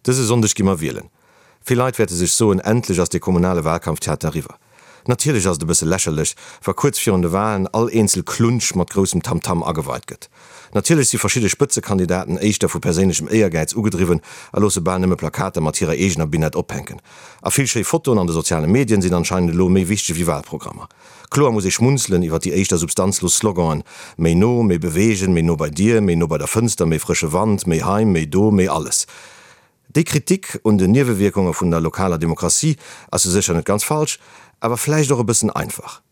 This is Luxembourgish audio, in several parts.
Dëse Sonndeg gi mer wielen. Vill Leit wäerte sech soen, endlech ass dee kommunale Wahlkampftheater eriwwer. Natierlech ass et e bësse lächerlech, wa kuerz virun de Wahlen all eenzel Klunsch mat groussem Tamtam ageweit gëtt. Natierlech si verschidde Spëtzekandidaten éischter vu perséinlechem Éiergäiz ugedriwwen a loosse bal nëmme Plakater mat hirer eegener Binett ophänken. A vill schéi Fotoen an de soziale Medien sinn anscheinend elo méi wichteg wéi Wahlprogrammer. Kloer muss ee schmunzelen iwwer déi éischter substanzlos Sloganen, méi no, méi bewegen, méi no bei dir, méi no bei der Fënster, méi frësche Wand, méi hei, méi do, méi alles. Déi Kritik un den Niewewierkunge vun der lokaler Demokratie ass jo sécher net ganz falsch, awer vläicht och e bëssen einfach.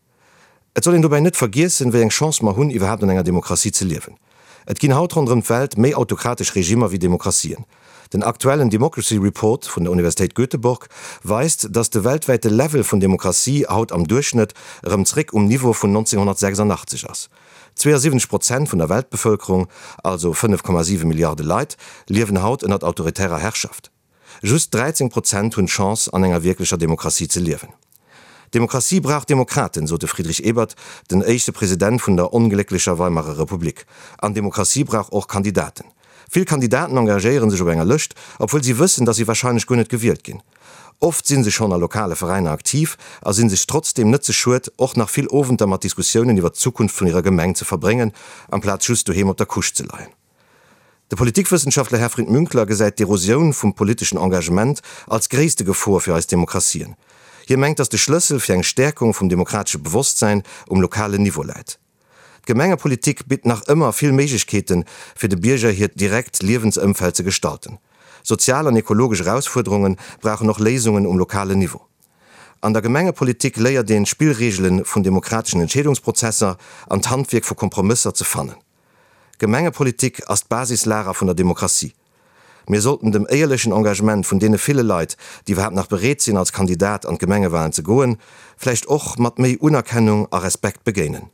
Et soll een dobäi net vergiessen, wéi eng Chance mer hunn, iwwerhaapt an enger Demokratie ze liewen. Et ginn haut ronderëm d'Welt méi autokratesch Regimmer wéi Demokratien. Den aktuellen Democracy Report vun der Universitéit Göteborg weist, datt de weltwäite Level vun Demokratie haut am Duerchschnëtt erëm zréck um Niveau vun 1986 ass. 72 Prozent vun der Weltbevëlkerung, also 5,7 Milliarde Leit, liewen haut ënnert autoritärer Herrschaft. Just 13 Prozent hunn d'Chance, an enger wierklecher Demokratie ze liewen. Demokratie brauch Demokraten, sot de Friedrich Ebert, den éischte President vun der onglécklecher Weimarer Republik. An Demokratie brauch och Kandidaten. Vill Kandidaten engagéiere sech op enger Lëscht, obwuel si wëssen, datt si warscheinlech guer net gewielt ginn. Oft si se schonn a lokale Veräiner aktiv a si sech trotzdeem net ze schued, och nach vill Owenter mat Diskussiounen iwwer d'Zukunft vun hirer Gemeng ze verbréngen, amplaz just doheem op der Couche ze leien. De Politikwëssenschaftler Herfried Münkler gesäit d'Erosioun vum politeschen Engagement als gréisste Gefor fir eis Demokratien. Hie mengt, datt de Schlëssel fir eng Stäerkung vum demokratesche Bewosstsäin um lokalen Niveau läit. D'Gemengepolitik bitt nach ëmmer vill Méiglechkeeten, fir de Bierger hiert direkt Liewensëmfeld ze gestalten. Sozial an ekologesch Erausfuerderunge brauchen och Léisungen um lokalen Niveau. An der Gemengepolitik léiert een d'Spillreegele vun demokrateschen Entscheedungsprozesser an d'Handwierk vu Kompromësser ze fannen. Gemengepolitik ass d'Basislager vun der Demokratie. Mir sollten dem éierlechen Engagement vun deene ville Leit, déi iwwerhaapt nach bereet sinn als Kandidat an d'Gemengewahlen ze goen, vläicht och mat méi Unerkennung a Respekt begéinen.